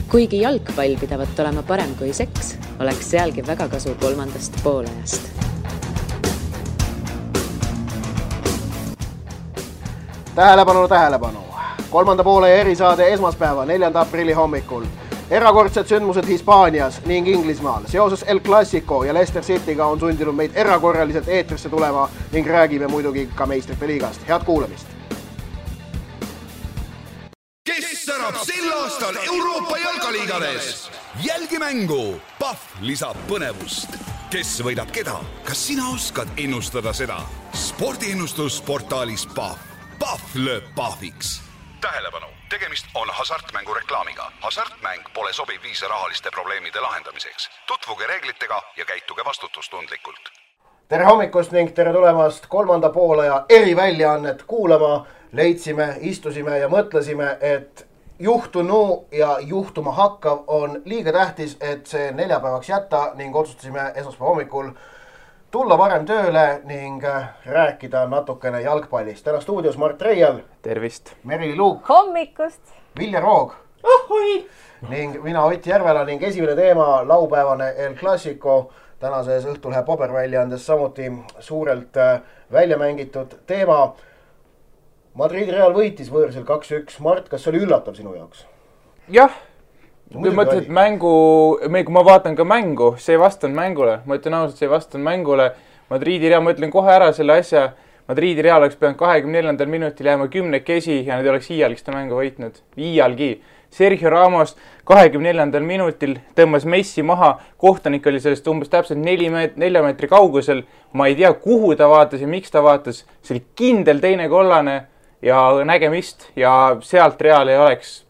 Kuigi jalgpall pidavat olema parem kui seks, oleks sealgi väga kasu kolmandast poolajast. Tähelepanu! Kolmanda poole erisaade esmaspäeva 4. aprilli hommikul. Erakordsed sündmused Hispaanias ning Inglismaal. Seoses El Clasico ja Leicester Cityga on sundinud meid erakorraliselt eetrisse tulema ning räägime muidugi ka meistrite liigast. Head kuulamist! Kes särab sel aastal Euroopa jalkaliigades? Jälgi mängu! Pahv lisab põnevust. Kes võidab keda? Kas sina oskad ennustada seda? Spordiennustus portaalis Pahv. Pahv lööb pahviks. Tähelepanu! Tegemist on hasartmängu reklaamiga. Hasartmäng pole sobiv viis rahaliste probleemide lahendamiseks. Tutvuge reeglitega ja käituge vastutustundlikult. Tere hommikust ning tere tulemast kolmanda poolaja eriväljaannet kuulama. Leidsime, istusime ja mõtlesime, et juhtunu ja juhtuma hakkav on liiga tähtis, et see neljapäevaks jätta ning otsustasime esmaspäeva hommikul tulla varem tööle ning rääkida natukene jalgpallist. Täna stuudios Mart Reial. Tervist. Merili Luuk. Hommikust. Vilja Roog. Ohoi. Ning mina Ott Järvela ning esimene teema laupäevane El Clasico. Tänases Õhtulehe paberväljaandes samuti suurelt välja mängitud teema. Madridi Real võitis võõrsil 2-1. Mart, kas see oli üllatav sinu jaoks? Jah. Kui mõtled, kui ma vaatan ka mängu, see ei vastanud mängule. Ma ütlen ausalt, see ei vastanud mängule. Madridi Real, ma ütlen kohe ära selle asja. Madridi Real oleks pidanud 24. minutil jääma 10 ja nad ei oleks iialgi seda mängu võitnud. Iialgi. Sergio Ramos 24. minutil tõmbas Messi maha. Kohtanik oli sellest umbes täpselt 4 meetri kaugusel. Ma ei tea, kuhu ta vaatas ja miks ta vaatas. See oli kindel teine kollane ja nägemist ja sealt Real ei oleks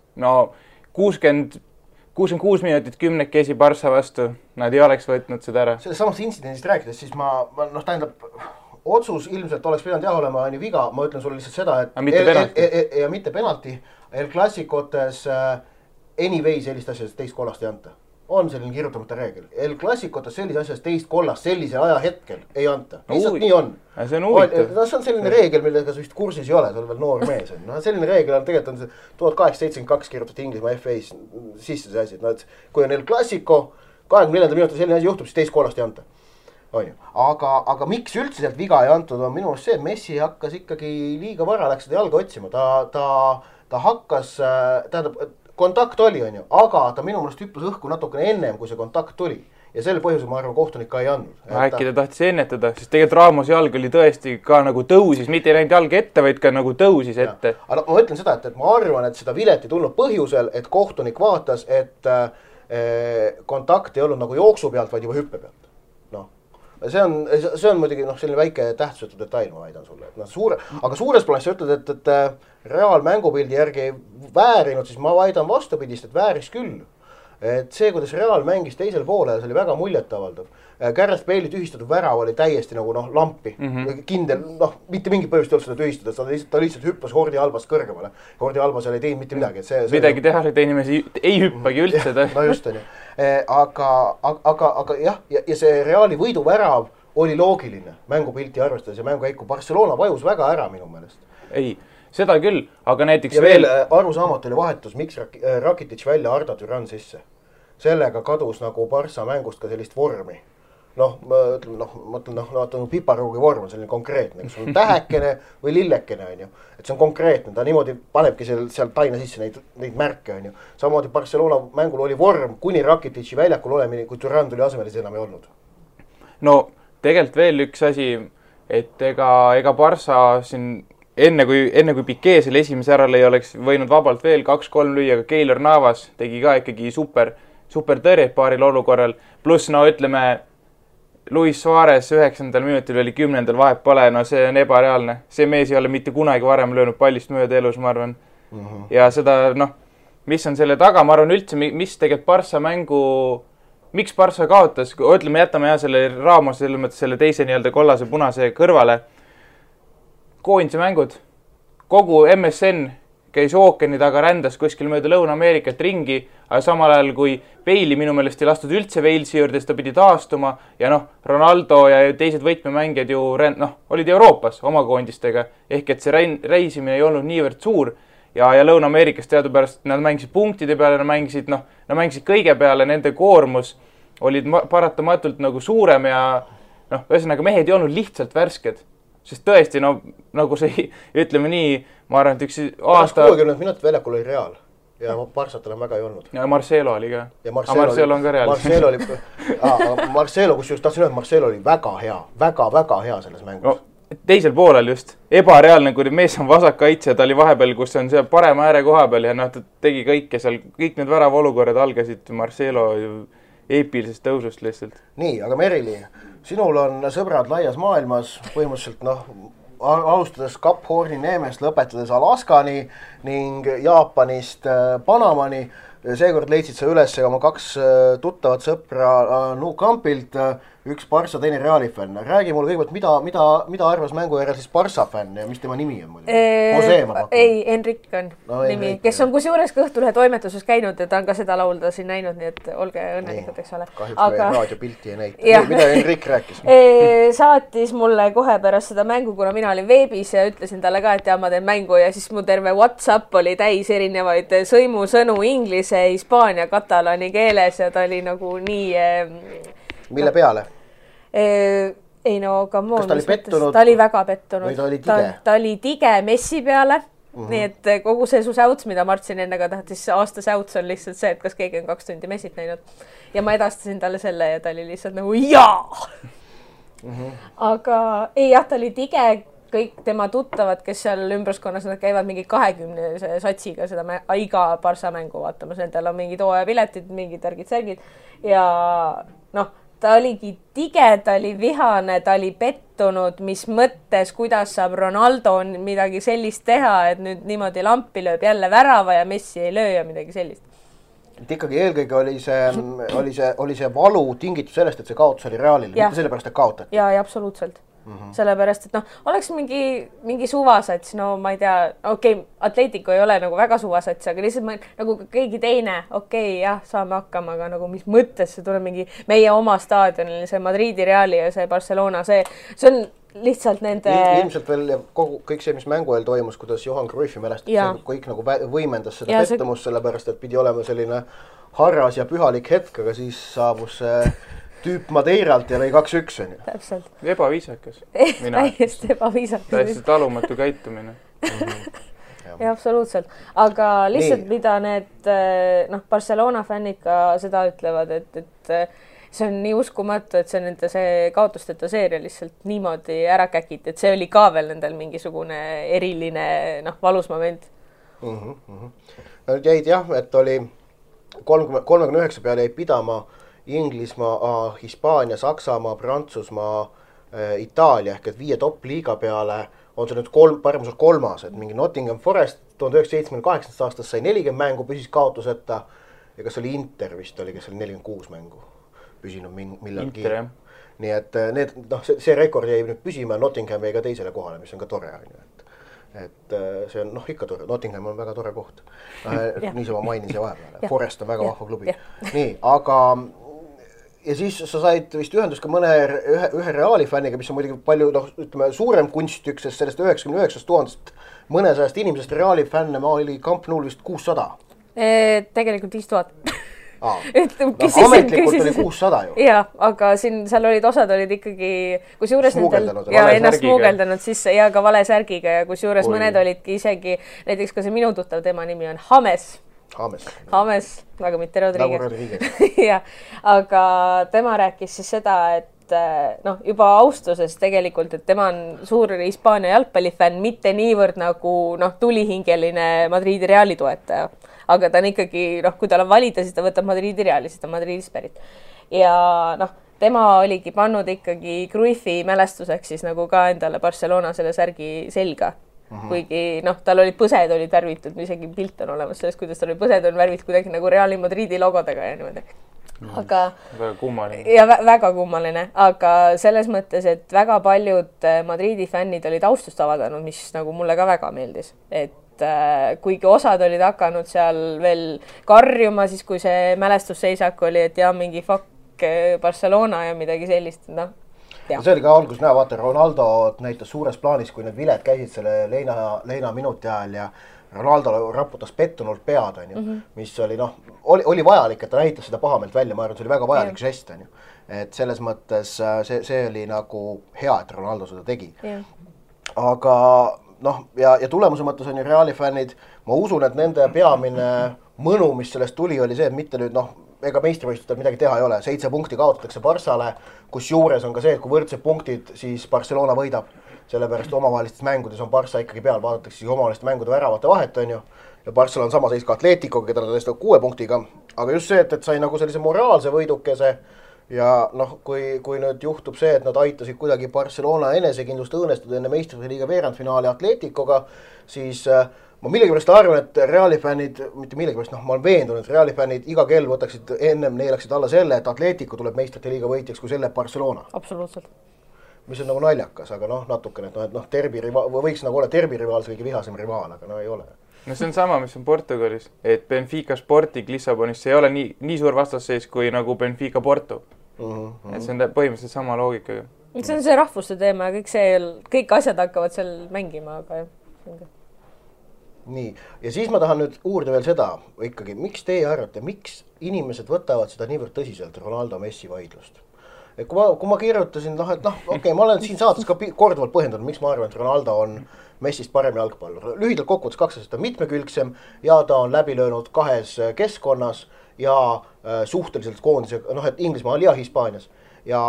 66 minutit 10 Barca vastu. Nad ei oleks võtnud seda ära. Sellest samast intsidendist rääkides, siis otsus ilmselt oleks pidanud olema viga. Ma ütlen sulle lihtsalt seda, et mitte penalti. El Clasicotes anyways sellist asjast teist kollast ei anta. On selline kirjutamata reegel. El Clasicotes sellise asjast teist kollast sellisel ajahetkel ei anta. Lihtsalt nii on. See on huvitav. See on selline reegel, millega sa vist kursis ei ole, sa oled veel noor mees. Selline reegel on tegelikult 1872 kirjutatud Inglismaa FA-s sisse see asi. Kui on El Clasico, 24. minutil selline asi juhtub, siis teist kollast ei anta. Aga miks üldse sealt viga ei antud on minu arust see, et Messi hakkas ikkagi liiga vara, läks seda jalga otsima. Ta hakkas, kontakt oli, aga ta minu meelest hüppas õhku natukene ennem, kui see kontakt tuli. Ja selle põhjusel, ma arvan, kohtunik ka ei andnud. Äkki ta tahtis ennetada, sest tegelikult Ramos jalg oli tõesti ka nagu tõusis, mitte ei läinud jalg ette, vaid ka nagu tõusis ette. Aga ma ütlen seda, et ma arvan, et seda vilet ei tulnud põhjusel, et kohtunik vaatas, et kontakt ei olnud nagu jooksu pealt, vaid juba hüppe pealt. See on muidugi selline väike tähtsusetu detail, ma väidan sulle. Aga suures plaanis sa ütled, et Real mängupildi järgi ei väärinud, siis ma väidan vastupidist, et vääris küll. Et see, kuidas Real mängis teisel poole, see oli väga muljetavaldav. Gareth Bale'i tühistatud värav oli täiesti nagu lampi. Kindel, mitte mingi põhjust ei olnud seda tühistada, ta lihtsalt hüppas Jordi Albast kõrgemale. Jordi Alba seal ei teinud mitte midagi. Midagi teha, et inimesi ei hüppagi üldse. No just on ju. Aga jah, ja see Reali võiduvärav oli loogiline mängupilti arvestades ja mängukäiku. Barcelona vajus väga ära minu meelest. Ei, seda küll, aga näiteks ja veel arusaamat oli vahetus, miks Rakitic välja Arda Türan sisse. Sellega kadus nagu Barca mängust ka sellist vormi. Ma ütlen, piparuugi vorm on selline konkreetne, kas on tähekene või lillekene, et see on konkreetne, ta niimoodi panebki seal taina sisse neid märke, samamoodi Barcelona mängul oli vorm, kuni Rakitici väljakul olemine, kui Türan tuli asemel, siis enam ei olnud. No, tegelikult veel üks asi, et ega Barca siin enne kui Piqué selle esimese ärale ei oleks võinud vabalt veel 2-3 lüüa, aga Keylor Navas tegi ka ikkagi super tõrjet paaril olukorral, pluss ütleme Luis Suarez 9. minutil oli 10. vahet pole, see on ebareaalne. See mees ei ole mitte kunagi varem löönud pallist mööda elus, ma arvan. Ja seda, mis on selle taga, ma arvan üldse, mis tegelikult Barca mängu, miks Barca kaotas, ütleme, jätame selle Ramos, selle teise kollase punase kõrvale. Koondise mängud, kogu MSN käis ookeani taga, rändas kuskil mööda Lõuna-Ameerikat ringi, aga samal ajal kui Bale'i minu meelest ei lastud üldse Walesi juurde, siis ta pidi taastuma ja Ronaldo ja teised võtmemängijad ju olid Euroopas oma koondistega, ehk et see reisimine ei olnud niivõrd suur ja Lõuna-Ameerikas teadupärast nad mängisid punktide peale, nad mängisid kõige peale, nende koormus olid paratamatult nagu suurem ja ühesõnaga mehed ei olnud lihtsalt värsked. Sest tõesti, nagu see, ütleme nii, ma arvan, et üks aasta... 60 minutit väljakul oli Real ja Barsatel on väga ei olnud. Ja Marcelo oli ka. Ja Marcelo on ka Real. Marcelo, kus just tahtsin öelda, Marcelo oli väga hea, väga hea selles mängus. Teisel poolel just. Ebareaalne, kui mees on vasakkaitse, ta oli vahepeal, kus on see parema ääre koha peal ja ta tegi kõike seal, kõik need värava olukorrad algasid Marcelo eepilisest tõusust lihtsalt. Nii, aga Merili, sinul on sõbrad laias maailmas, põhimõtteliselt alustades Cap Horni neemest, lõpetades Alaskani ning Jaapanist Panamani. Seekord leidsid sa üles oma 2 tuttavat sõpra Nou Campilt, üks Barça, teine Reali fänn. Räägi mulle kõigepealt, mida arvas mängu järel siis Barça fänn ja mis tema nimi on? Ei, Enrik on nimi, kes on kusjuures Kõhtulehe toimetuses käinud ja ta on ka seda laulda siin näinud, nii et olge õnnelikud, eks ole. Kahjuks meie raadiopilti ei näita. Mida Enrik rääkis? Saatis mulle kohe pärast seda mängu, kuna mina olin veebis ja ütlesin talle ka, et ma teen mängu ja siis mu terve WhatsApp oli täis erinevaid sõimusõnu inglise, hispaania, katalani keeles ja ta oli nagu nii... Mille peale? Ei no, come on, ta oli väga pettunud. Või ta oli tige? Ta oli tige Messi peale, nii et kogu see su säuts, mida Martsin ennega tahtis, aasta säuts on lihtsalt see, et kas keegi on 2 tundi Messit näinud. Ja ma edastasin talle selle ja ta oli lihtsalt nagu jaa! Aga ei jah, ta oli tige, kõik tema tuttavad, kes seal ümbruskonnas, nad käivad mingi 20 satsiga seda iga Barça mängu vaatamas, nendel on mingid hooajapiletid, mingid särgid ja ta oligi tige, ta oli vihane, ta oli pettunud, mis mõttes, kuidas saab Ronaldo midagi sellist teha, et nüüd niimoodi lampi lööb jälle värava ja Messi ei löö ja midagi sellist. Et ikkagi eelkõige oli see valu tingitud sellest, et see kaotus oli Realile, mitte sellepärast, et kaotati. Ja absoluutselt. Sellepärast, et oleks mingi suvasats, ma ei tea, Atletico ei ole nagu väga suvasats, aga lihtsalt nagu keegi teine, jah, saame hakkama, aga nagu mis mõttes see tuleb mingi meie oma staadionil, see Madridi Reali ja see Barcelona, see on lihtsalt nende... Ilmselt veel kõik see, mis mängu eel toimus, kuidas Johan Cruyffi mälestab, kõik nagu võimendas seda pettumust, sellepärast, et pidi olema selline harras ja pühalik hetk, aga siis saabus tüüp Madeiralt ja lõi 2-1. Täpselt. Ebaviisakas. Täiesti ebaviisakas. Täiesti talumatu käitumine. Ja absoluutselt. Aga lihtsalt mida need Barcelona fännid ka seda ütlevad, et see on nii uskumatu, et see nende see kaotusteta seeria lihtsalt niimoodi ära käkiti, et see oli ka veel nendel mingisugune eriline valus moment. Jäid jah, et oli 39 peale jäi pidama Inglismaa, Hispaania, Saksamaa, Prantsusmaa, Itaalia ehk et 5 top-liiga peale on see nüüd paremuse 3, et mingi Nottingham Forest 1978. aastast sai 40 mängu, püsis kaotuseta ja kas oli Inter vist oli, kes oli 46 mängu püsinud millalgi. Inter, jah. Nii et see rekord jäi nüüd püsima ja Nottingham jäi ka teisele kohale, mis on ka tore. Et see on ikka tore, Nottingham on väga tore koht. Niisama mainin see vahepeale. Forest on väga vahva klubi. Nii, aga ja siis sa said vist ühendus ka ühe Reali fänniga, mis on muidugi palju suurem kunstük, sest sellest 99 000 mõnesajast inimesest Reali fänne oli Camp Noul vist 600. Tegelikult 5000. Ametlikult oli 600 ju. Jaa, aga seal osad olid ikkagi ennast smuugeldanud sisse ja ka vale särgiga ja kusjuures mõned olidki isegi, näiteks ka see minu tuttav, tema nimi on James, aga mitte Rodriguez. Ja, aga tema rääkis siis seda, et juba austusest tegelikult, et tema on suur Hispaania jalgpallifänn, mitte niivõrd nagu tulihingeline Madridi Reali toetaja. Aga ta on ikkagi, kui tal on valida, siis ta võtab Madridi Reali, siis ta Madridist pärit. Ja tema oligi pannud ikkagi Cruyffi mälestuseks siis nagu ka endale Barcelona selle särgi selga. Kuigi tal olid põsed olid värvitud, isegi pilt on olemas sellest, kuidas tal oli põsed on värvitud kuidagi nagu Reali Madridi logodega ja niimoodi. Aga väga kummaline. Ja väga kummaline, aga selles mõttes, et väga paljud Madridi fännid olid austust avaldanud, mis nagu mulle ka väga meeldis. Et kuigi osad olid hakanud seal veel karjuma, siis kui see mälestusseisak oli, et mingi fuck Barcelona ja midagi sellist, See oli ka algus näha, vaata Ronaldo näitas suures plaanis, kui need viled käisid selle leina minuti ajal ja Ronaldo raputas pettunult pead, mis oli oli vajalik, et ta näitas seda pahameelt välja, ma arvan, see oli väga vajalik žest, et selles mõttes see oli nagu hea, et Ronaldo seda tegi. Aga ja tulemuse mõttes on ju Reali fännid, ma usun, et nende peamine mõnu, mis sellest tuli, oli see, et mitte nüüd ega meistrivõistlustel midagi teha ei ole. 7 punkti kaotatakse Barssale, kus juures on ka see, et kui võrdsed punktid, siis Barcelona võidab. Sellepärast omavahelistes mängudes on Barssa ikkagi peal, vaadatakse siis omavaheliste mängude väravate vahet, on ju. Ja Barssal on sama seis ka Atleticoga, keda ta tõestab 6 punktiga. Aga just see, et sai nagu sellise moraalse võidukese ja kui nüüd juhtub see, et nad aitasid kuidagi Barcelona enesekindlust õõnestada enne meistrite liiga veerandfinaali Atleticoga, siis ma millegipärast arvan, et Reali fännid, mitte millegipärast, ma olen veendunud, et Reali fännid iga kell võtaksid ennem neelaksid alla selle, et Atletico tuleb meistrite liiga võitjaks, kui selle Barcelona. Absoluutselt. Mis on nagu naljakas, aga natukene, et võiks nagu olla derbirivaal see kõige vihasem rivaal, aga ei ole. No see on sama, mis on Portugalis, et Benfica Sporting Lissabonis ei ole nii suur vastasseis kui nagu Benfica Porto. Et see on põhimõtteliselt sama loogikaga. See on see rahvuste teema ja kõik asjad hakkavad seal mängima, aga jah. Nii, ja siis ma tahan nüüd uurida veel seda ikkagi, miks teie arvate, miks inimesed võtavad seda niivõrd tõsiselt Ronaldo Messi vaidlust? Et kui ma kirjutasin, et ma olen siin saates ka korduvalt põhjendanud, miks ma arvan, et Ronaldo on Messist parem jalgpallur. Lühidalt kokkuvõttes 2 aastat on mitmekülgsem ja ta on läbi löönud 2 keskkonnas ja suhteliselt koondisega, et Inglismaal ja Hispaanias ja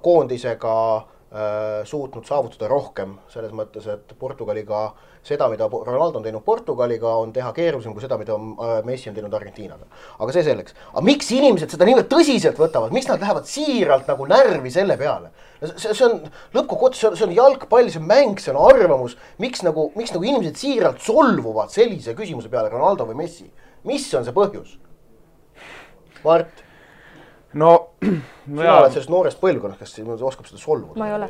koondisega suutnud saavutada rohkem selles mõttes, et Portugaliga seda, mida Ronaldo on teinud Portugaliga, on teha keerulisem kui seda, mida Messi on teinud Argentiinaga. Aga see selleks. Aga miks inimesed seda niivõrd tõsiselt võtavad? Miks nad lähevad siiralt nagu närvi selle peale? See on lõppkokkuvõttes, see on jalgpall, see on mäng, see on arvamus. Miks nagu inimesed siiralt solvuvad sellise küsimuse peale, Ronaldo või Messi? Mis on see põhjus? Mart? Sina oled sellest noorest põlvkonnast, kes oskab seda solvuda? Ma ei ole.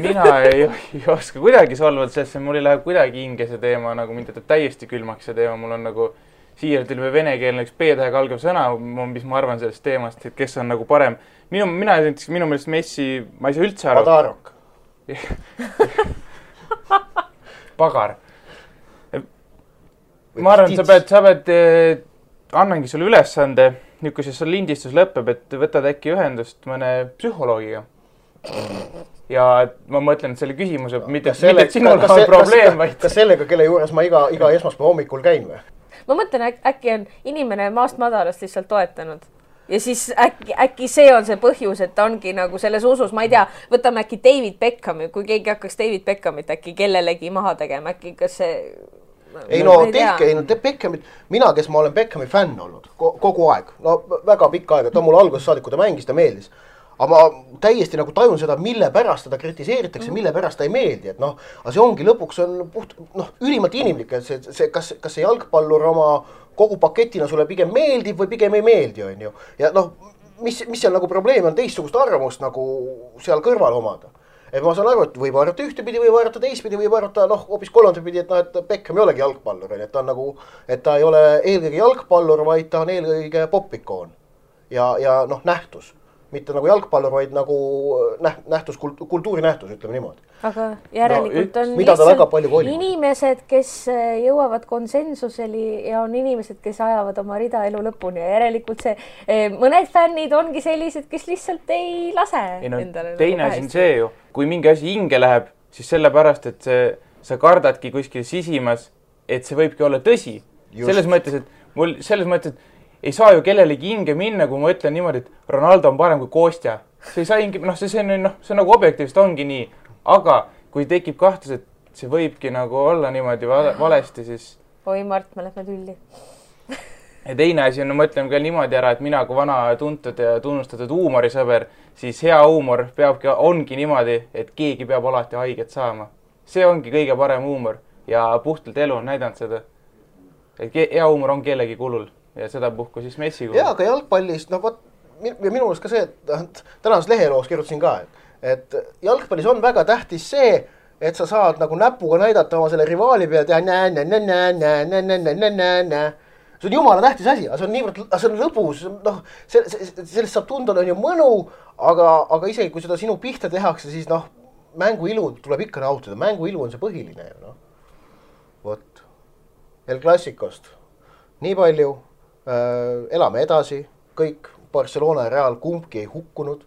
Mina ei oska kuidagi solvuda, sest mul ei lähe kuidagi hinge see teema, nagu mind jätab täiesti külmaks see teema. Mul on nagu siiralt ilme venekeelne üks P-tähega algav sõna, mis ma arvan sellest teemast, et kes on nagu parem. Minu meelest Messi, ma ei saa üldse aru. Padarok. Pagar. Ma arvan, sa pead annangi sulle ülesande, nüüd kui see lindistus lõpeb, et võtad äkki ühendust mõne psühholoogiga. Ja ma mõtlen, et selle küsimuse, mitte et sinul on probleem, vaid... Kas sellega, kelle juures ma iga esmaspäeva hommikul käin või? Ma mõtlen, äkki on inimene maast madalast lihtsalt toetanud. Ja siis äkki see on see põhjus, et ta ongi nagu selles usus, ma ei tea, võtame äkki David Beckhami, kui keegi hakkaks David Beckhamit äkki kellelegi maha tegema, äkki kas see... Beckhamit, mina, kes ma olen Beckhami fänn olnud kogu aeg, väga pikka aega, ta mul alguses saadik, kui ta mängis, ta meeldis. Aga ma täiesti nagu tajun seda, mille pärast teda kritiseeritakse, mille pärast ta ei meeldi, et aga see ongi lõpuks on ülimalt inimlik, et kas see jalgpallur oma kogu paketina sulle pigem meeldib või pigem ei meeldi, on ju. Ja mis seal nagu probleem on teistsugust arvamust nagu seal kõrval omada. Et ma saan aru, et võib arvata ühtepidi, võib arvata teistpidi, võib arvata hoopis kolmandapidi, et Beckham ei olegi jalgpallur, et ta on nagu, et ta ei ole eelkõige jalgpallur, vaid ta on eelkõige popikoon ja nähtus. Mitte nagu jalgpallur, vaid nagu nähtus, kultuurinähtus, ütleme niimoodi. Aga järelikult on lihtsalt inimesed, kes jõuavad konsensuseli ja on inimesed, kes ajavad oma rida elu lõpuni ja järelikult mõned fännid ongi sellised, kes lihtsalt ei lase endale. Teine asi on see ju, kui mingi asi hinge läheb, siis sellepärast, et sa kardadki kuskil sisimas, et see võibki olla tõsi. Selles mõttes, et ei saa ju kellelegi hinge minna, kui ma ütlen niimoodi, et Ronaldo on parem kui Kostja. See ei saa hinge, see on nagu objektiivselt ongi nii. Aga kui tekib kahtlus, et see võibki nagu olla niimoodi valesti, siis... Oi, Mart, me lähme tülli. Ja teine asi on, ma mõtlen ka niimoodi ära, et mina kui vana tuntud ja tunnustatud huumorisõber, siis hea huumor ongi niimoodi, et keegi peab alati haiget saama. See ongi kõige parem huumor ja puhtalt elu on näidanud seda. Et hea huumor on kellegi kulul ja seda puhku siis Messi kulul. Jaa, aga jalgpallist, minu mõelest ka see, et tänases leheloos kirjutasin ka, et jalgpallis on väga tähtis see, et sa saad nagu näpuga näidata oma selle rivaali pealt ja see on jumala tähtis asi, aga see on lõbus, sellest saab tunda on ju mõnu, aga isegi kui seda sinu pihta tehakse, siis mängu ilu tuleb ikka nautida, mängu ilu on see põhiline ju, Vot. El Clasicost. Nii palju, elame edasi, kõik Barcelona ja Real kumbki ei hukkunud.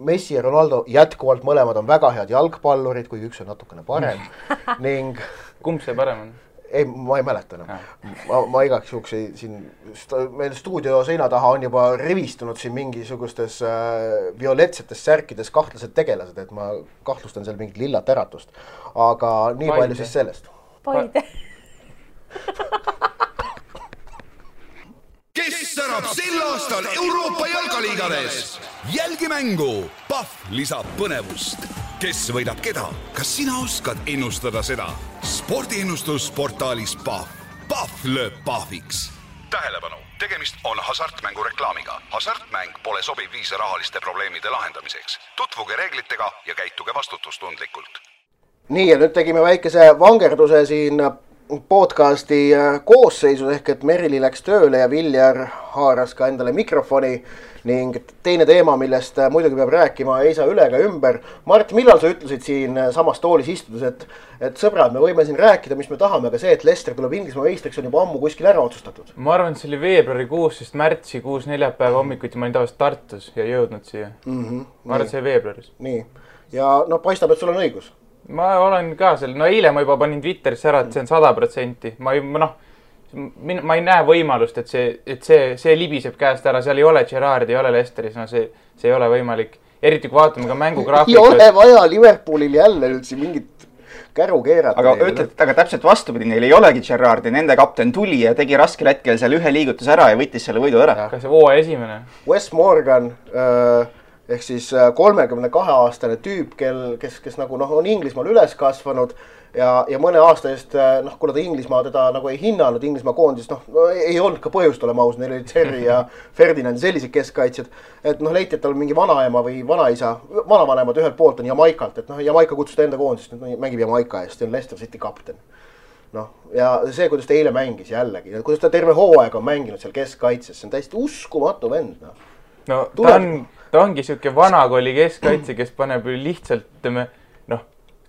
Messi ja Ronaldo jätkuvalt mõlemad on väga head jalgpallurid, kuigi üks on natukene parem. Ning... Kumb see parem on? Ei, ma ei mäleta enam. Ma igaks juhuks siin, meil stuudio seina taha on juba rivistunud siin mingisugustes violetsetes särkides kahtlased tegelased, et ma kahtlustan seal mingit lillat äratust. Aga nii palju siis sellest. Paide. Kes särab sel aastal Euroopa jalkaliigades? Jälgi mängu, Pahv lisab põnevust. Kes võidab keda? Kas sina oskad ennustada seda? Spordiennustusportaalis Pahv. Pahv lööb Pahviks. Tähelepanu, tegemist on hasartmängu reklaamiga. Hasartmäng pole sobiv viis rahaliste probleemide lahendamiseks. Tutvuge reeglitega ja käituge vastutustundlikult. Nii, ja nüüd tegime väikese vangerduse siin podcasti koosseisus ehk et Merili läks tööle ja Viljar haaras ka endale mikrofoni ning teine teema, millest muidugi peab rääkima, ei saa üle ega ümber. Mart, millal sa ütlesid siin samas toolis istudes, et sõbrad, me võime siin rääkida, mis me tahame, aga see, et Leicester tuleb Inglismaa meistriks, on juba ammu kuskil ära otsustatud? Ma arvan, et see oli veebruarikuus, sest märtsikuus neljapäeva hommikuti ma olin tavaliselt Tartus ja jõudnud siia. Ma arvan, et see oli veebruaris. Nii, ja no paistab, et sul on õigus. Ma olen ka seal, no eile ma juba panin Twitterisse ära, et see on 100%. Ma ei näe võimalust, et see libiseb käest ära, seal ei ole Gerrard, ei ole Leicesteris, no see ei ole võimalik. Eriti kui vaatame ka mängugraafikut. Ei ole vaja Liverpoolil jälle üldse mingit käru keerata. Aga ütled, aga täpselt vastupidi, neil ei olegi Gerrard ja nende kapten tuli ja tegi raskel hetkel seal ühe liigutus ära ja võttis selle võidu ära. Kas see hooaja esimene? Wes Morgan... ehk siis 32-aastane tüüp, kes nagu on Inglismaal üles kasvanud ja mõne aasta eest, kuna ta Inglismaa teda nagu ei hinnanud, Inglismaa koondis, ei olnud ka põhjust olema aus, neil oli Terry ja Ferdinand sellised keskkaitsjad, et leiti, et tal on mingi vanaema või vanaisa, vanavanemad ühelt poolt on Jamaikalt, et Jamaika kutsus ta enda koondist, mängib Jamaika eest, see on Leicester City kapten. Ja see, kuidas ta eile mängis jällegi, kuidas ta terve hooaega on mänginud seal keskkaitses, see on täiesti uskumatu vend. No ta ongi siuke vanakooli keskkaitse, kes paneb lihtsalt,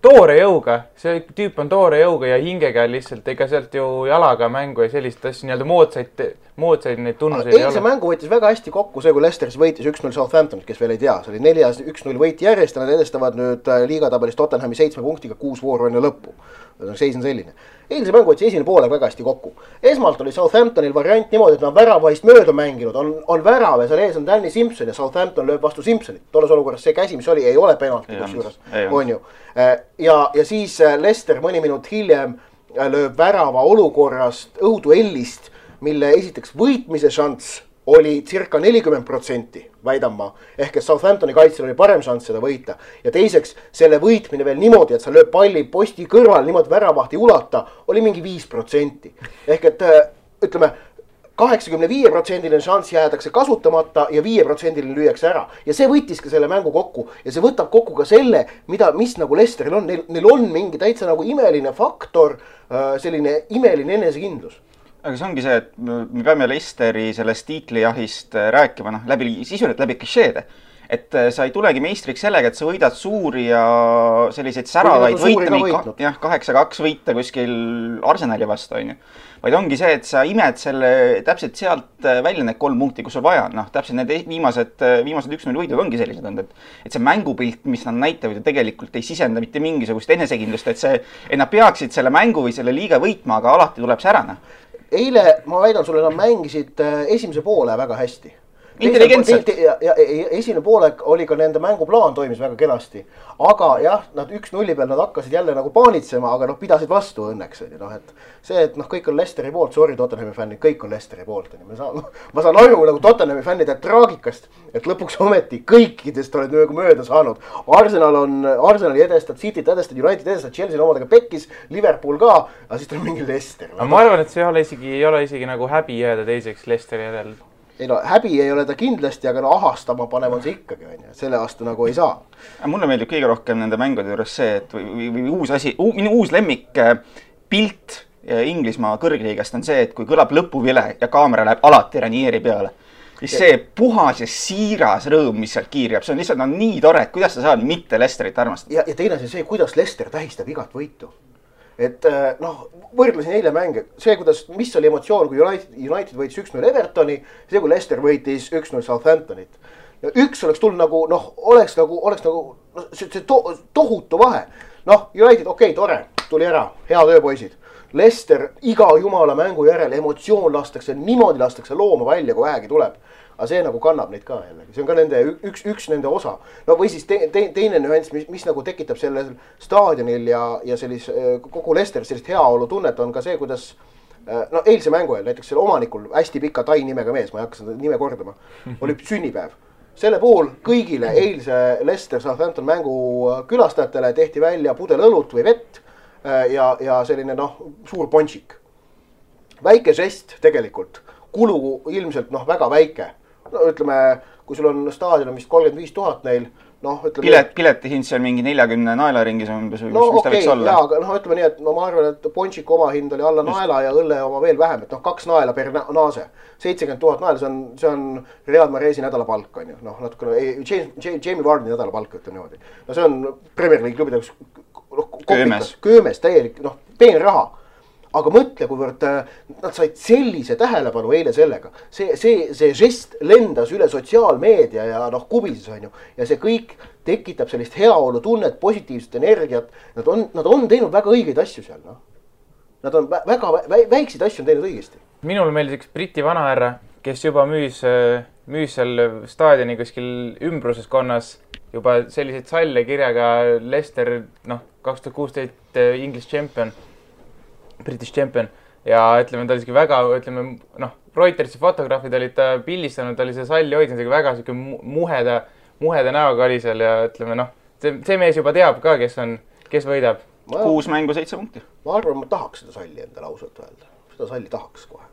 toore jõuga. See tüüp on toore jõuga ja hingega lihtsalt, ega sealt ju jalaga mängu ja sellist asja nii-öelda moodsaid neid tunnuseid ei ole. Eilse mängu võitis väga hästi kokku see, kui Leicesteris võitis 1-0 Southamptonit, kes veel ei tea. See oli 4-1-0 võit järjest ja nad edestavad nüüd liigatabelis Tottenhami 7 punktiga 6 vooru enne lõppu. Seis on selline. Eilse mängu võttis esimene poole väga hästi kokku. Esmalt oli Southamptonil variant niimoodi, et nad väravahist mööda mänginud. On värav ja seal ees on Danny Simpson ja Southampton lööb vastu Simpsonit. Tolles olukorras see käsi, mis oli, ei ole penalti kusjuures. On ju. Ja siis Leicester mõni minut hiljem lööb värava olukorrast õhuduellist, mille esiteks võitmise šanss oli circa 40%, väidan ma. Ehk et Southamptoni kaitsel oli parem šanss seda võita. Ja teiseks, selle võitmine veel niimoodi, et sa lööb palli posti kõrval niimoodi väravahti ulata, oli mingi 5%. Ehk et, ütleme, 85% šanss jäädakse kasutamata ja 5% lüüakse ära. Ja see võttis ka selle mängu kokku. Ja see võtab kokku ka selle, mis nagu Leicesteril on. Neil on mingi täitsa nagu imeline faktor, selline imeline enesekindlus. Aga see ongi see, et me peame Leicesteri sellest tiitlijahist rääkima, sisuliselt läbi klišeede. Et sa ei tulegi meistriks sellega, et sa võidad suuri ja selliseid säravaid võita, 8-2 võita kuskil Arsenali vastu, on ju. Vaid ongi see, et sa imed selle täpselt sealt välja need 3 punkti, kus sul vaja. Täpselt need viimased 1-0 võidud ongi sellised olnud, et see mängupilt, mis nad näitavad, tegelikult ei sisenda mitte mingisugust enesekindlust, et nad peaksid selle mängu või selle liiga võitma, aga alati tuleb see ära. Eile, ma väidan sulle, nad mängisid esimese poole väga hästi. Intelligentselt. Esimene poole oli ka nende mänguplaan toimis väga kenasti. Aga jah, nad 1-0 peal nad hakkasid jälle nagu paanitsema, aga pidasid vastu õnneks. Et kõik on Leicesteri poolt, sorry Tottenhami fännid, kõik on Leicesteri poolt. Ma saan aru nagu Tottenhami fännide traagikast, et lõpuks ometi kõikidest oled mööda saanud. Arsenali edestad, City't edestad, United edestad, Chelsea omadega pekkis, Liverpool ka, aga siis tuleb mingi Leicester. Ma arvan, et see ei ole isegi nagu häbi jääda teiseks Leicesteri järel. Ei häbi ei ole ta kindlasti, aga ahastama panev on see ikkagi, selle vastu nagu ei saa. Mulle meeldib kõige rohkem nende mängude juures see, et või uus asi, minu uus lemmik pilt Inglismaa kõrgliigast on see, et kui kõlab lõpuvile ja kaamera läheb alati Ranieri peale, siis see puhas ja siiras rõõm, mis sealt kiirjab, see on lihtsalt nii tore, et kuidas sa saad mitte Leicesterit armastada. Ja teine see, kuidas Leicester tähistab igat võitu. et noh, võrdlesin eile mänge, see, mis oli emotsioon, kui United võitis 1-0 Evertoni, see, kui Leicester võitis 1-0 Southamptonit. Ja üks oleks tulnud nagu, noh, oleks nagu see tohutu vahe. Noh, United, okei, tore, tuli ära, hea tööpoisid. Leicester iga jumala mängu järel emotsioon lastakse, niimoodi lastakse looma välja, kui vähegi tuleb. Aga see nagu kannab neid ka jällegi, see on ka nende üks nende osa. No või siis teine nüanss, mis nagu tekitab sellel staadionil ja kogu Leicester sellist heaolu tunnet on ka see, kuidas no eilse mängu ajal, näiteks selle omanikul hästi pika tai nimega mees, ma ei hakka seda nime kordama, oli sünnipäev. Selle puhul kõigile eilse Leicester Southampton mängu külastajatele tehti välja pudel õlut või vett ja selline noh, suur ponšik. Väike žest tegelikult, kulu ilmselt noh, väga väike. No ütleme, kui sul on staadion vist 35 000 neil, noh ütleme... Piletihind seal mingi 40 naelaringis on umbes, no, mis ta võiks olla? Jaa, aga noh, ütleme nii, et ma arvan, et ponšiku oma hind oli alla naela ja õlle oma veel vähem, et noh, 2 naela per naase. 70 000 naela, see on Real Marezi nädalapalk, on ju. Noh, natukene, Jamie Vardi nädalapalk, ütleme niimoodi. No see on Premier League klubide köömes täielik, noh, peen raha. Aga mõtle, kuivõrd nad said sellise tähelepanu eile sellega. See žest lendas üle sotsiaalmeedia ja noh, kubises on ju. Ja see kõik tekitab sellist heaolu tunnet, positiivset energiat. Nad on teinud väga õigeid asju seal. No. Nad on väga väikseid asju on teinud õigesti. Minul meeldis üks Briti vanahärra, kes juba müüs seal staadioni kuskil ümbruseskonnas juba selliseid salle kirjaga Leicester, noh, 2016 English champion. British champion ja ütleme, ta oli isegi väga, ütleme, noh, Reutersi fotograafid olid ta pildistanud, ta oli see salli hoidnud, väga muheda näoga oli seal ja ütleme, noh, see mees juba teab ka, kes võidab. 6 mängu 7 punkti. Ma arvan, ma tahaks seda salli enda lausalt öelda. Seda salli tahaks kohe.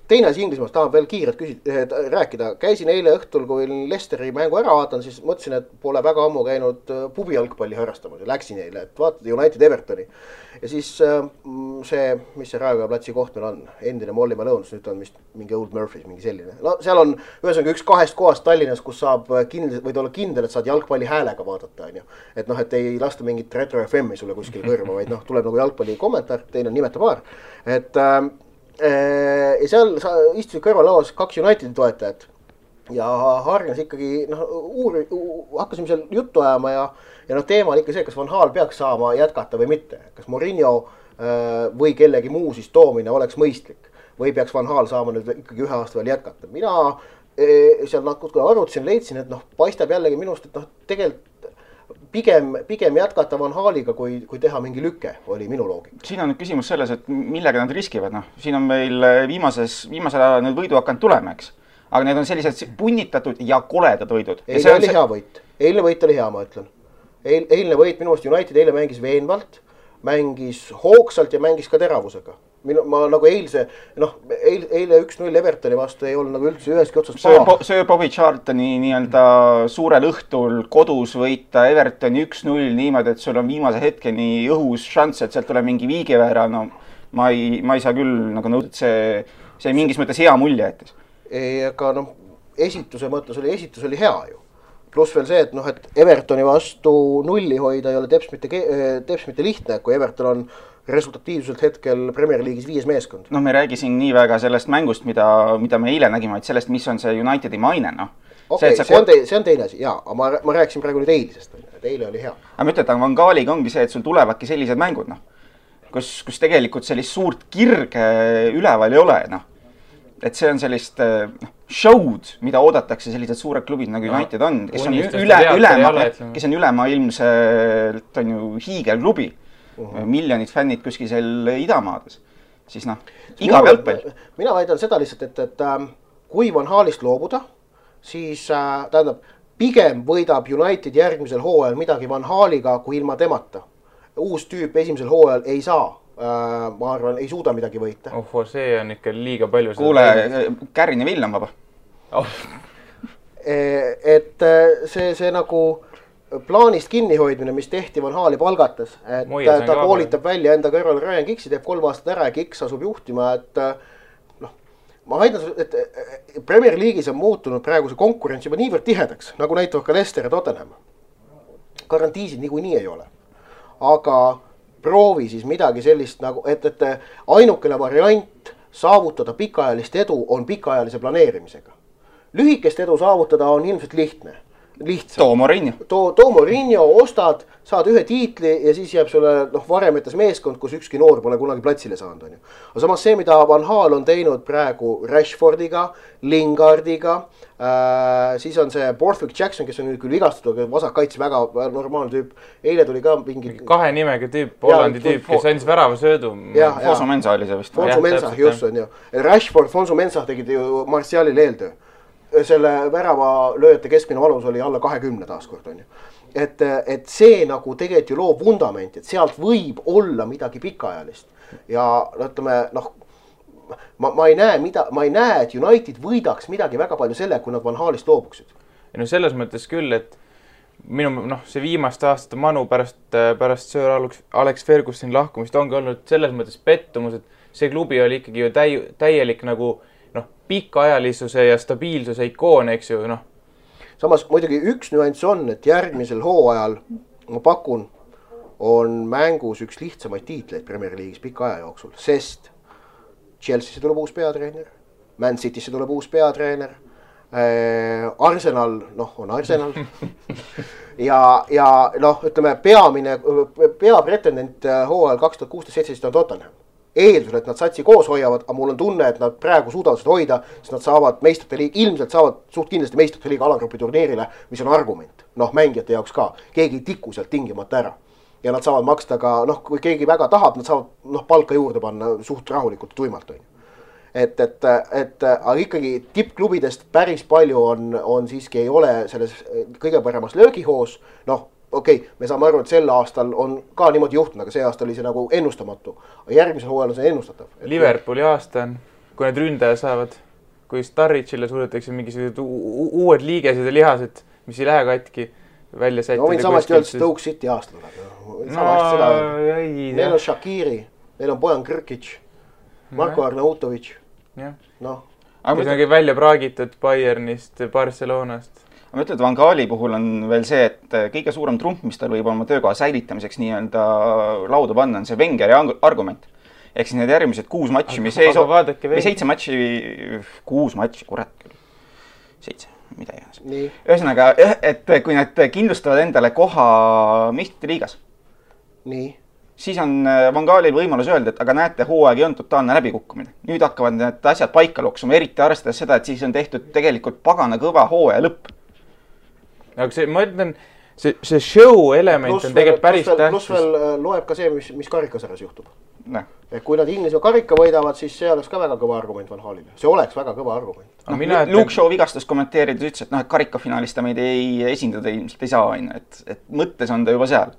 Teine asi Inglismaast tahan veel kiirelt rääkida. Käisin eile õhtul, kui Leicesteri mängu ära vaatan, siis mõtlesin, et pole väga ammu käinud pubi jalgpalli harrastamas ja läksin eile, et vaatad United Evertoni. Ja siis see, mis see Raekoja platsi koht meil on, endine Molly Malone's, nüüd on vist mingi Old Murphy's, mingi selline. No seal on ühesõnaga üks 2 kohast Tallinnas, kus saab võid olla kindel, et saad jalgpalli häälega vaadata. On ju. Et noh, et ei lasta mingit Retro FM-i sulle kuskil kõrva, vaid noh, tuleb nagu jalgpalli kommentaar, teine on nimeta paar. Et ja seal istusid kõrvalauas 2 Unitedi toetajat ja hargnes ikkagi, noh, hakkasime seal juttu ajama ja noh, teema oli ikka see, kas Van Gaal peaks saama jätkata või mitte. Kas Mourinho või kellegi muu siis toomine oleks mõistlik või peaks Van Gaal saama nüüd ikkagi 1 aasta veel jätkata. Mina seal natuke arvutasin, leidsin, et noh, paistab jällegi minust, et noh, tegelikult pigem jätkata Van Gaaliga, kui teha mingi lüke, oli minu loogika. Siin on nüüd küsimus selles, et millega nad riskivad. No, siin on meil viimasel ajal need võidu hakanud tulema, eks. Aga need on sellised punnitatud ja koledad võidud. Eilne oli hea võit. Eilne võit oli hea, ma ütlen. Eilne võit minu arust United eile mängis veenvalt, mängis hoogsalt ja mängis ka teravusega. Ma nagu eile 1-0 Evertoni vastu ei olnud nagu üldse üheski otsast paha. Sir Bobby Charltoni nii-öelda suurel õhtul kodus võita Evertoni 1-0 niimoodi, et sul on viimase hetkeni õhus šanss, et sealt tuleb mingi viigiväär. No, ma ei saa küll nagu nõuda, et see mingis mõttes hea mulje jättis. Aga noh, esitus oli hea ju. Pluss veel see, et noh, et Evertoni vastu nulli hoida ei ole teps mitte lihtne, kui Everton on resultatiivselt hetkel Premier League'is 5 meeskond. No me räägi siin nii väga sellest mängust, mida me eile nägime, et sellest, mis on see Unitedi maine, noh. Okei, see on teine asi, jaa, aga ma rääkisin praegu nüüd eilisest, et eile oli hea. Aga ma ütlen, et Van Gaaliga ongi see, et sul tulevadki sellised mängud, noh. Kus tegelikult sellist suurt kirge üleval ei ole, noh. Et see on sellist show'd, mida oodatakse sellised suured klubid nagu United on, kes on ülemaailmselt on ju hiigelklubi. Miljonid fännid kuskil seal idamaades. Siis noh, iga jalgpall. Mina väidan seda lihtsalt, et kui Van Gaalist loobuda, siis tähendab, pigem võidab United järgmisel hooajal midagi Van Gaaliga kui ilma temata. Uus tüüp esimesel hooajal ei saa. Ma arvan, ei suuda midagi võita. See on ikka liiga palju. Kuule, Kärrin ja Villam vaba. Et see nagu plaanist kinnihoidmine, mis tehti Van Gaali palgates, et ta koolitab välja enda kõrval Ryan Giggsi, teeb 3 aastat ära ja Giggs asub juhtima, et noh, ma väidan, et Premier League'is on muutunud praegu see konkurents juba niivõrd tihedaks, nagu näitavad ka Leicester ja Tottenham. Garantiisid niikuinii ei ole. Aga proovi siis midagi sellist nagu, et ainukene variant saavutada pikaajalist edu on pikaajalise planeerimisega. Lühikest edu saavutada on ilmselt lihtne. Too Mourinho, ostad, saad ühe tiitli ja siis jääb sulle varemetes meeskond, kus ükski noor pole kunagi platsile saanud. Aga samas see, mida Van Gaal on teinud praegu Rashfordiga, Lingardiga, siis on see Borthwick Jackson, kes on nüüd küll vigastatud, aga vasakkaitse väga normaalne tüüp. Eile tuli ka mingi... 2 nimega tüüp, Hollandi tüüp, kes andis värava söödu. Fonsu Mensa oli see vist. Fonsu Mensa, just on ju. Rashford, Fonsu Mensa tegid ju Martialile eeltöö. Selle värava lööjate keskmine valus oli alla 20 taaskord on ju. Et see nagu tegelikult ju loob vundamenti, et sealt võib olla midagi pikaajalist. Ja ütleme, ma ei näe, et United võidaks midagi väga palju selle, kui nad Van Gaalist loobuksid. No selles mõttes küll, et see viimaste aastate manu pärast Sir Alex Fergusoni lahkumist ongi olnud selles mõttes pettumus, et see klubi oli ikkagi ju täielik nagu pikaajalisuse ja stabiilsuse ikoon, eks ju, Samas muidugi üks nüanss on, et järgmisel hooajal, ma pakun, on mängus üks lihtsamaid tiitleid Premier League'is pika aja jooksul, sest Chelsea'sse tuleb uus peatreener, Man City'sse tuleb uus peatreener, Arsenal, on Arsenal ja ütleme, peapretendent hooajal 2016-17 on Tottenham. Eeldusel, et nad satsi koos hoiavad, aga mul on tunne, et nad praegu suudavad seda hoida, sest nad saavad meistrite liiga, ilmselt saavad suht kindlasti meistrite liiga alagrupi turniirile, mis on argument. Mängijate jaoks ka. Keegi ei tiku sealt tingimata ära. Ja nad saavad maksta ka, kui keegi väga tahab, nad saavad palka juurde panna suht rahulikult tuimalt. Aga ikkagi tippklubidest päris palju on siiski ei ole selles kõige paremas löögihoos. Me saame aru, et sel aastal on ka niimoodi juhtunud, aga see aasta oli see nagu ennustamatu. Järgmisel hooajal on see ennustatav. Liverpooli aasta on, kui need ründaja saavad, kui Starrichile suudetakse mingisugused uued liigesed ja lihased, mis ei lähe katki välja sättida. Võin samasti öelda, Stoke City aasta tuleb. Neil on Shaqiri, neil on Bojan Krkic, Marko Arnautovic. Kui see on välja praagitud Bayernist, Barcelonast. Ma ütlen, et Van Gaali puhul on veel see, et kõige suurem trump, mis tal võib oma töökoha säilitamiseks nii-öelda lauda panna, on see Wengeri argument. Ehk siis need järgmised 6 matši, mis 7 matši, 6 matši, kurat küll. 7, mida iganes. Ühesõnaga, et kui nad kindlustavad endale koha meistrite liigas, siis on Van Gaalil võimalus öelda, et aga näete, hooaeg ei on totaalne läbikukkumine. Nüüd hakkavad need asjad paika loksuma, eriti arvestades seda, et siis on tehtud tegelikult pagana kõva hooaja lõpp. Aga ma ütlen, see show element on tegelikult päris tähtis. Plus veel loeb ka see, mis karikasarjas juhtub. Kui nad Inglismaa karika võidavad, siis see oleks ka väga kõva argument Van Gaalile. See oleks väga kõva argument. Luke Shaw vigastas kommenteerides ütles, et karikafinaalis ta meid ei esindada ilmselt ei saa aina, et mõttes on ta juba seal.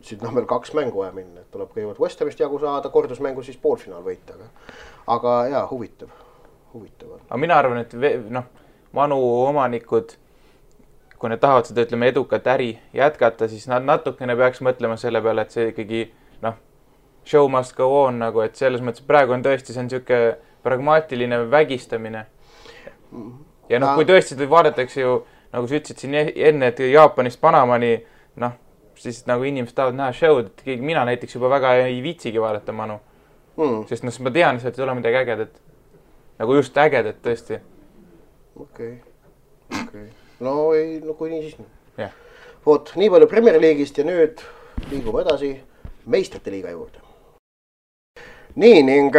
Siit on veel 2 mängu vaja minna, et tuleb kõigepealt West Hamist jagu saada, kordusmängu siis poolfinaal võita. Aga jaa, huvitav. Aga mina arvan, et Manu omanikud, kui need tahavad seda, ütleme, edukat äri jätkata, siis nad natukene peaks mõtlema selle peale, et see ikkagi, show must go on, et selles mõttes praegu on tõesti, see on niisugune pragmaatiline vägistamine. Ja kui tõesti vaadatakse ju, nagu sa ütlesid siin enne, et Jaapanist Panamani, siis nagu inimesed tahavad näha show'd, et mina näiteks juba väga ei viitsigi vaadata Manu. Sest ma tean, et ei ole midagi ägedat. Nagu just ägedat tõesti. Okei. Kui nii siis nii. Vot, nii palju Premier League'ist ja nüüd liigume edasi meistrite liiga juurde. Nii, ning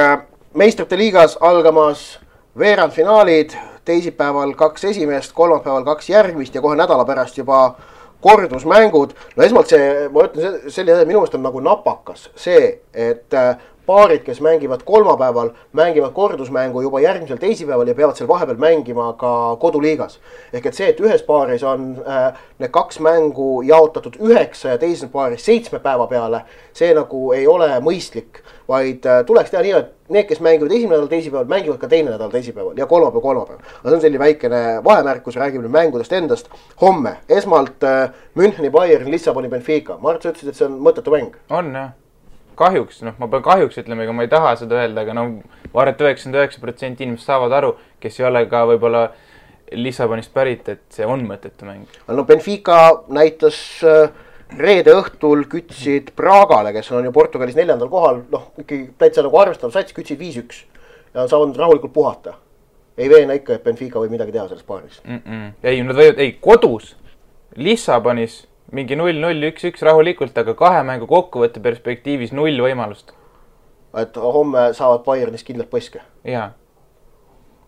meistrite liigas algamas veerandfinaalid, teisipäeval 2 esimest, kolmapäeval 2 järgmist ja kohe nädala pärast juba kordusmängud. Esmalt ma ütlen, minu meelest on nagu napakas see, et paarid, kes mängivad kolmapäeval, mängivad kordusmängu juba järgmisel teisipäeval ja peavad seal vahepeal mängima ka koduliigas. Ehk et see, et ühes paaris on need 2 mängu jaotatud 9 ja teises paaris 7 päeva peale, see nagu ei ole mõistlik, vaid tuleks teha nii, et need, kes mängivad esimene nädal teisipäeval, mängivad ka teine nädal teisipäeval ja kolmapäev. Aga see on selline väikene vahemärkus, räägime mängudest endast. Homme, esmalt Müncheni Bayern, Lissaboni Benfica. Mart, sa ütlesid, et see on mõttetu mäng. On, jah. Kahjuks, ma pean kahjuks ütlema, ega ma ei taha seda öelda, aga ma arvan, et 99% inimesed saavad aru, kes ei ole ka võib-olla Lissabonist pärit, et see on mõttetu mäng. Benfica näitas reede õhtul kütsid Pragale, kes on ju Portugalis 4. kohal, noh, ikkagi täitsa nagu arvestav sats, kütsid 5-1 ja saavad rahulikult puhata. Ei veena ikka, et Benfica võib midagi teha selles paaris. Ei, nad võivad, kodus Lissabonis mingi 0-0, 1-1 rahulikult, aga 2 mängu kokkuvõtte perspektiivis 0 võimalust. Et homme saavad Bayernis kindlalt põske. Jaa.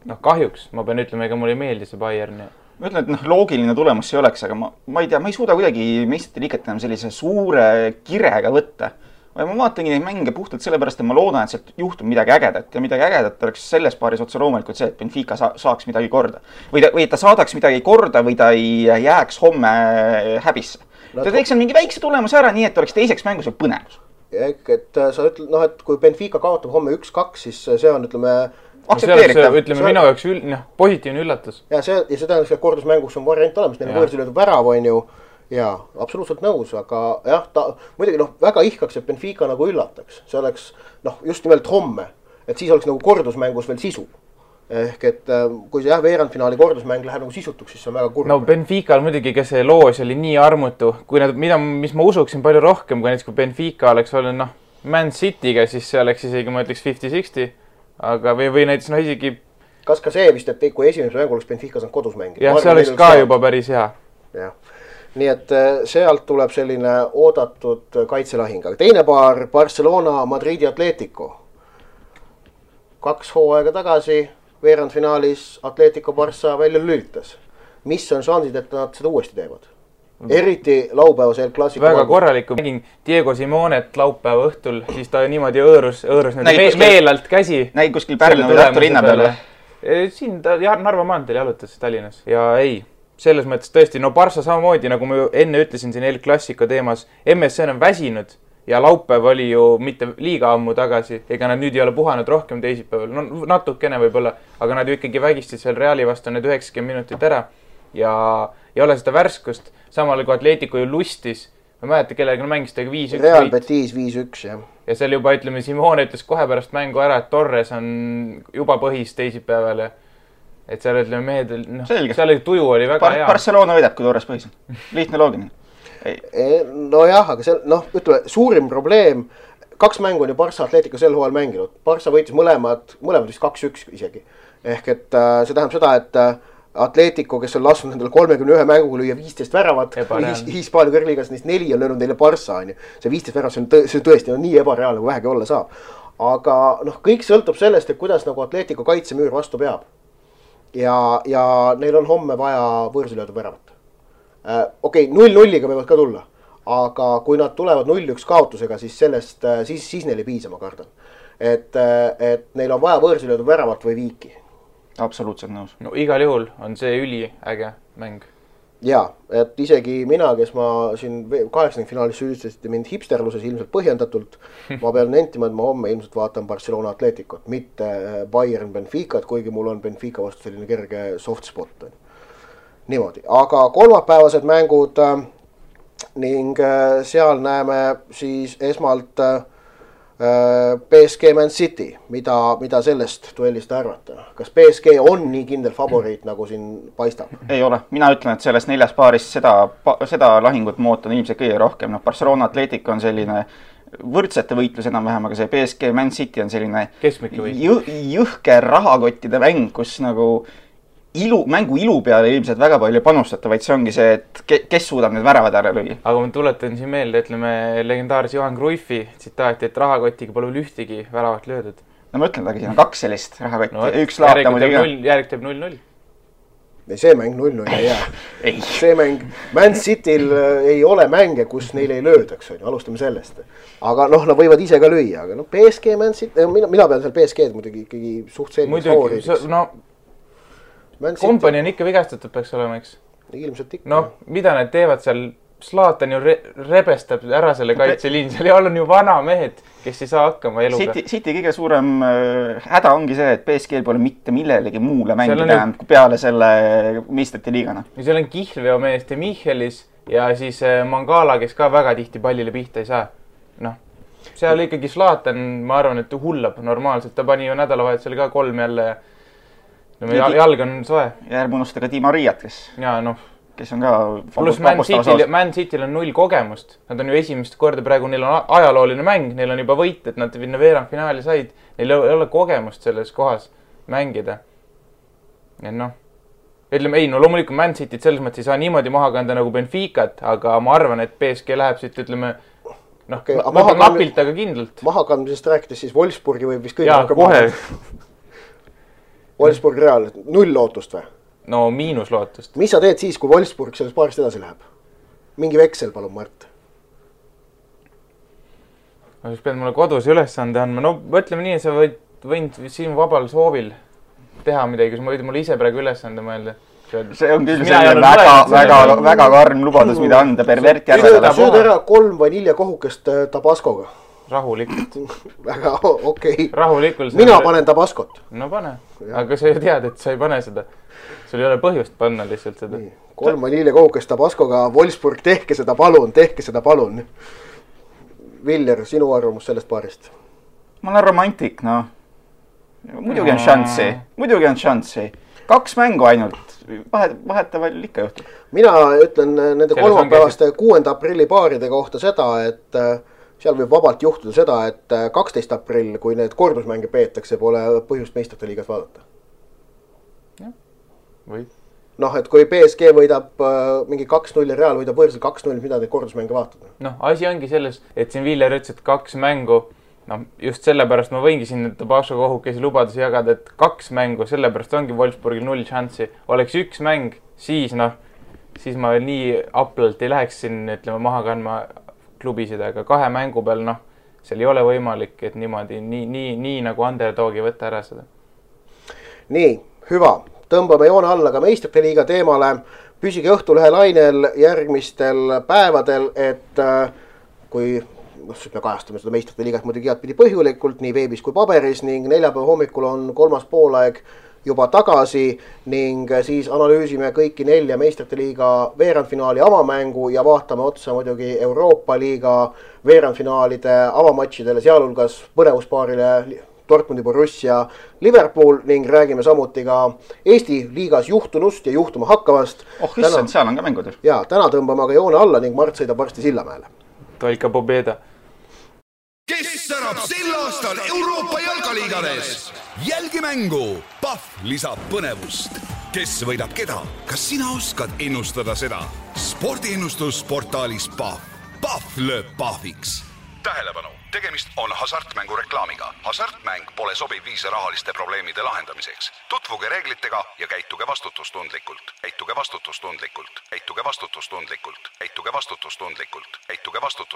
Noh, kahjuks, ma pean ütlema, ega mulle ei meeldi see Bayern. Ma ütlen, et loogiline tulemus see oleks, aga ma ei tea, ma ei suuda kuidagi meistrite liiget enam sellise suure kirega võtta. Ma vaatangi neid mänge puhtalt sellepärast, et ma loodan, et sealt juhtub midagi ägedat ja midagi ägedat oleks selles paaris otse loomulikult see, et Benfica saaks midagi korda. Või ta saadaks midagi korda või ta ei jääks homme häbisse. Ta teeks mingi väikse tulemuse ära, nii et oleks teiseks mängus või põnevus. Et sa ütled, et kui Benfica kaotab homme 1-2, siis see on, ütleme, aktsepteeritav. Ütleme, minu jaoks positiivne üllatus. Ja see tähendab, et kordusmängus on variant olemas, neil võõrsilöödud värav on ju. Jaa, absoluutselt nõus, aga jah, ta muidugi väga ihkaks, et Benfica nagu üllataks. See oleks just nimelt homme, et siis oleks nagu kordusmängus veel sisu. Ehk et kui see veerandfinaali kordusmäng läheb nagu sisutuks, siis see on väga kurb. No Benfica muidugi, kes see loos oli nii armutu, kui mis ma usuksin palju rohkem, kui näiteks kui Benfica oleks olnud Man City'ga, siis see oleks isegi, ma ütleks 50-60, aga või näiteks isegi... Kas ka see vist, et kui esimese mängu oleks Benfica saanud kodusmängi? Jah, see oleks ka juba päris hea. Jah. Nii et sealt tuleb selline oodatud kaitselahing. Aga teine paar, Barcelona, Madridi Atletico. 2 hooaega tagasi veerandfinaalis Atletico Barça välja lülitas. Mis on šansid, et nad seda uuesti teevad? Eriti laupäevas El Clasico. Väga korraliku. Mängin Diego Simonet laupäeva õhtul, siis ta niimoodi õõrus meelalt käsi. Näid kuskil Pärnu või Tartu linna peale? Siin ta Narva maanteel jalutas Tallinnas. Ja ei, selles mõttes tõesti, Barça samamoodi, nagu ma enne ütlesin siin El Clasico teemas, MSN on väsinud ja laupäev oli ju mitte liiga ammu tagasi, ega nad nüüd ei ole puhanud rohkem teisipäeval, natukene võib-olla, aga nad ju ikkagi vägistid seal Reali vastu need 90 minutit ära ja ei ole seda värskust, samal kui Atletico ju lustis, ma mäleta, kellega mängis tega 5-1. Real Betis 5-1, jah. Ja seal juba, ütleme, Simone ütles kohe pärast mängu ära, et Torres on juba põhis teisipäeval ja et seal ütleme mehed, seal tuju oli väga hea. Barcelona võidab, kui Torres põhis. Lihtne loogine. Nojah, aga see, ütleme, suurim probleem, 2 mängu on ju Barça Atletico sel hooajal mänginud. Barça võitis mõlemad vist 2-1 isegi. Ehk et see tähendab seda, et Atletico, kes on lasknud nendele 31 mänguga lüüa 15 väravat, Hispaania kõrgliigas neist 4 on löönud neile Barça. See 15 väravat, see tõesti on nii ebareaalne, kui vähegi olla saab. Aga kõik sõltub sellest, et kuidas nagu Atletico kaitsemüür vastu peab. Ja neil on homme vaja võõrsilöödu väravat. Okei, 0-0-ga võivad ka tulla, aga kui nad tulevad 0-1 kaotusega, siis sellest, siis neil ei piisa, ma kardan. Et neil on vaja võõrsilöödu väravat või viiki. Absoluutselt nõus. No igal juhul on see üliäge mäng. Jaa, et isegi mina, kes ma siin 8. finaalis süüdistasite mind hipsterluses ilmselt põhjendatult, ma pean nentima, et ma homme ilmselt vaatan Barcelona Atleticot, mitte Bayern Benficat, kuigi mul on Benfica vastu selline kerge soft spot. Niimoodi, aga kolmapäevased mängud ning seal näeme siis esmalt PSG Man City, mida sellest duellist arvata? Kas PSG on nii kindel favoriit, nagu siin paistab? Ei ole. Mina ütlen, et sellest 4 paarist seda lahingut ma ootan ilmselt kõige rohkem. Barcelona Atletico on selline võrdsete võitlus enam-vähem, aga see PSG Man City on selline jõhke rahakottide mäng, kus nagu mängu ilu peale ilmselt väga palju panustada, vaid see ongi see, et kes suudab need väravad ära lüüa. Aga ma tuletan siin meelde, ütleme legendaarse Johan Cruyffi tsitaati, et rahakotiga pole ühtegi väravat löödud. No ma ütlen, aga siin on 2 sellist rahakotti. Üks laata muidugi. Järg teeb 0-0. See mäng 0-0 ei jää. See mäng, Man Cityl ei ole mänge, kus neil ei löödaks, alustame sellest. Aga nad võivad ise ka lüüa, aga PSG, Man City, mina pean seal PSG-d muidugi ikkagi suht selgeks favoriidiks. Kompani on ikka vigastatud peaks olema, eks? Ilmselt ikka. No, mida need teevad seal? Zlatan ju rebestab ära selle kaitseliin. Seal on ju vana mehed, kes ei saa hakkama eluga. City kõige suurem häda ongi see, et PSG pole mitte millelegi muule mängida peale selle meistrite liigana. Seal on Kihlveo meest ja Michelis ja siis Mangala, kes ka väga tihti pallile pihta ei saa. Seal ikkagi Zlatan, ma arvan, et hullab normaalselt. Ta pani ju nädalavahetusel ka 3 jälle. Jalg on soe. Ja ärme unusta ka Di Mariat, kes. Ja kes on ka pluss Man Cityl on 0 kogemust. Nad on ju esimest korda praegu, neil on ajalooline mäng, neil on juba võit, et nad veerandfinaali said. Neil ei ole kogemust selles kohas mängida. Ja ütleme, ei, loomulikult Man Cityt selles mõttes ei saa niimoodi maha kanda nagu Benficat, aga ma arvan, et PSG läheb siit, ütleme, napilt, aga kindlalt. Mahakandmisest rääkides siis Wolfsburgi võib vist kõige kohe. Wolfsburg Real, 0 lootust või? No miinus lootust. Mis sa teed siis, kui Wolfsburg selles paarist edasi läheb? Mingi veksel, palun, Mart. Ma siis pead mulle kodus ülesande andma. No mõtleme nii, sa võid siin vabal soovil teha midagi, kui sa mulle ise praegu ülesande mõelda. See on küll väga karm lubadus, mida anda pervert järvedele. Sööd ära 3 vaniljakohukest Tabascoga. Rahulikult. Väga okei. Rahulikult. Mina panen Tabascot. No pane. Aga sa ju tead, et sa ei pane seda. Sul ei ole põhjust panna lihtsalt seda. 3 vaniljakohukest Tabascoga. Wolfsburg, tehke seda palun. Viller, sinu arvamus sellest paarist? Ma olen romantik, Muidugi on šanssi. 2 mängu ainult. Vahetavall ikka juhtub. Mina ütlen nende kolmapäevaste 6. aprilli paaride kohta seda, et seal võib vabalt juhtuda seda, et 12. aprill, kui need kordusmänge peetakse, pole põhjust meistrite liigas vaadata. Või? Et kui PSG võidab mingi 2-0 ja Real võidab võõrsil 2-0, mida neid kordusmänge vaatada? Asi ongi selles, et siin Viller ütles, et 2 mängu, just sellepärast ma võingi siin Tabasco kohukesi lubadusi jagada, et 2 mängu, sellepärast ongi Wolfsburgil 0 šanssi. Oleks 1 mäng, siis ma veel nii aplalt ei läheks siin, ütleme, maha kandma klubisid, aga 2 mängu peal, seal ei ole võimalik, et niimoodi, nii nagu underdogi võtta ära seda. Nii, hüva. Tõmbame joone alla ka meistrite liiga teemale. Püsige Õhtulehe lainel järgmistel päevadel, et kui me kajastame seda meistrite liigat muidugi igatpidi põhjulikult, nii veebis kui paberis, ning neljapäeva hommikul on 3. poolaeg juba tagasi ning siis analüüsime kõiki 4 meistrite liiga veerandfinaali avamängu ja vaatame otsa muidugi Euroopa liiga veerandfinaalide avamatšidele, sealhulgas põnevuspaarile Dortmundi Borussia Liverpool ning räägime samuti ka Eesti liigas juhtunust ja juhtuma hakkavast. Issand, seal on ka mängud. Ja, täna tõmbame aga joone alla ning Mart sõidab varsti Sillamäele. Toika pobeda. Kes särab sel aastal Euroopa jalkaliigades? Jälgi mängu. Pahv lisab põnevust. Kes võidab keda? Kas sina oskad ennustada seda? Spordiennustus portaalis Pahv. Pahv lööb pahviks. Tähelepanu, tegemist on hasartmängu reklaamiga. Hasartmäng pole sobiv viis rahaliste probleemide lahendamiseks. Tutvuge reeglitega ja käituge vastutustundlikult. Käituge vastutustundlikult. Käituge vastutustundlikult. Käituge vastutustundlikult. Käituge vastutustundlikult.